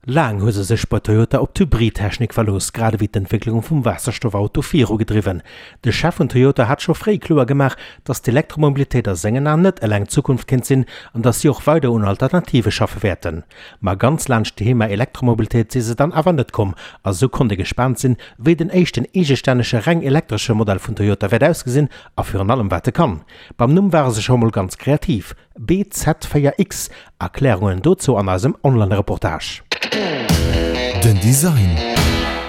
Laang hu se sech bei Toyota op d'Hybridtechnik verlooss, grad ewéi d'Entwécklung vum Waasserstoffauto virugedriwwen. De Chef vun Toyota hat scho fréi kloer gemaach, datt d'Elektromobilitéit a sengen Aen net eleng d'Zukunft kéint sinn an datt si och weider un Alternative schaffe wäerten. Ma ganz laanscht d'Thema Elektromobilitéit si se dann awer net komm a sou konnt ee gespaant sinn, wéi den éischten eegestännege reng elektresche Modell vun Toyota wäert ausgesinn a virun allem wat e kann. Beim Numm ware se scho mol ganz kreativ. BZ4X, Erklärungen dozou an eisem Online-Reportage. Den Design.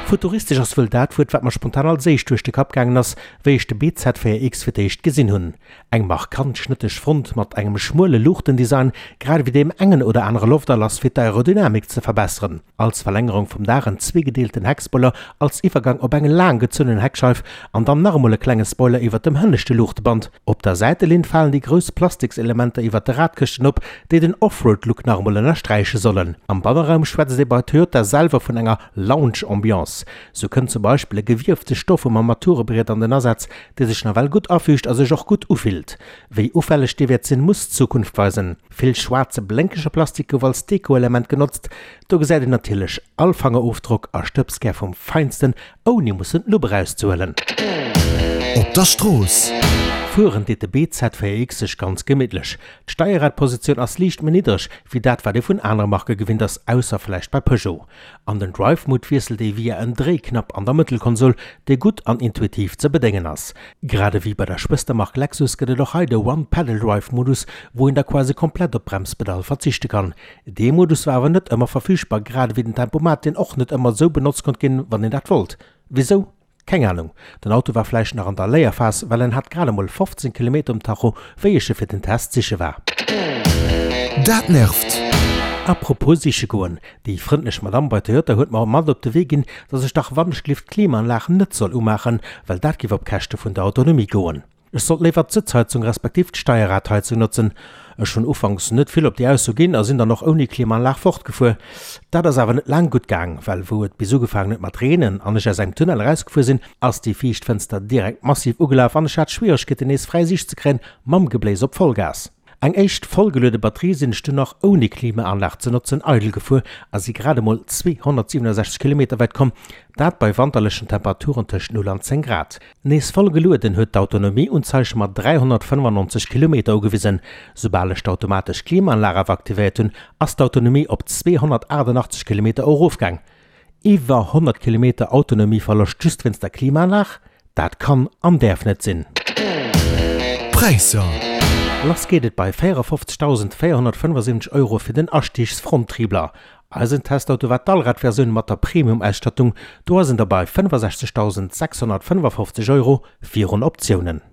Futuristesch ass wuel dat Wuert, wat mer spontan als éischt duerch de Kapp gaangen ass, wéi ech de BZ4X fir d'éischt gesinn hunn. Eng markant schnëtteg Front mat engem schmuele Luuchtendesign, grad ewéi deem engen oder anere Lofterlass fir d'Aerodynamik ze verbesseren. Als Verlängerung vum Daach en zweegedeelten Heckspoiler als Iwwergang op eng laang gezunnen Heckscheif an dann nach emol e klenge Spoiler iwwert dem hënneschte Luuchteband. Op der Säitelinn falen déi grouss Plastikselementer iwwert de Radkëschten op, déi den Offroad-Look nach emol ënnersträiche sollen. Am Banneraum schwätzt ee bei Toyota selwer vun enger Lounge-Ambiance. Sou kënnt zum Beispill e gewiefte Stoff um Armaturebriet an den Asaz, dee sech nawell gutt afüügt a sech och gutt ufillt. Wéi ufälleg dee wäert sinn, muss d'Zukunft weisen. Vill schwaarze blénkege Plastik gouf als Deko-Element genotzt. Do gesäit een natierlech all Fangerofdrock a Stëbskär vum Feinsten, ouni mussen d'Lupp erauszehuelen. Op der Strooss. Fueren deet de BZ4X sech ganz gemittlech. D'Steierradpositioun ass liicht méi niddreg wéi dat wat ee vun anere Marke gewinnt ass, ausser vläicht bei Peugeot. An den Drive Mode wiesselt ee via en Dréiknapp an der Mëttelkonsol, dee gutt an intuitiv ze bedéngen ass. Grad ewéi bei der Schwëstermark Lexus gëtt et och hei de One Pedal Drive Modus, wou een da quasi komplett op d'Bremspedall verzichte kann. Dee Modus war awer net ëmmer verfügbar, grad ewéi den Tempomat, deen och net ëmmer esou benotzt konnt ginn, wann een dat wollt. Wisou? Keng Anung. Den Auto war vläicht nach an der Léierphas, well en hat grad emol 15 Kilometer um Tacho, wéi ech e fir den Test siche war. Dat nervt! Apropos siche goen, Déi frëndlech Madamm bei Toyota huet mer mat op de Wee ginn, dass ech dach wannechgelift d'Klimaanlag net soll umaachen, well dat giff op Käschte vun der Autonomie goen. Ech sollt léiwer d'Sëtzheizung respektiv d'Steierradheizung notzen. Ech hunn ufanks net vill op déi Ausso ginn a sinn dann och ouni Klimaanlag fortgefuer. Dat ass awer net laang gutt gaang, well wou et bis ugefaangen huet mat reenen an ech aus engem Tunnel erausgefuer sinn, ass déi viischt Fënster direkt massiv ugelaf an ech hat Schwieregkeeten nees fräi Siicht ze kréien mam Gebléis op Vollgas. Eng éischt vollgeluede Batterie sinn ech dunn nach ouni Klimaanlag ze notzen eidel gefuer a si grad emol 267 Kilometer wäit komm, dat bei wanterlechen Temperaturen tëscht 0 an 10 Grad. Nees voll gelueden huet d'Autonomieunzeig mer 395 Kilometer ugewisen. Soubal ech d'automatesch Klimaanlag awer aktivéiert hunn, ass d'Autonomie op 288 Kilometer erofgaang. Iwwer 100 Kilometer Autonomieverloscht just wéinst der Klimaanlag? Dat kann an däerf net sinn. Präisser. Lass geet et bei 54.475 Euro fir den Astigsfronttriebler. Eisen Testauto war d'Allradversioun mat der Premium-Ausstattung, do ass en da bei 65.655 Euro virun Optiounen.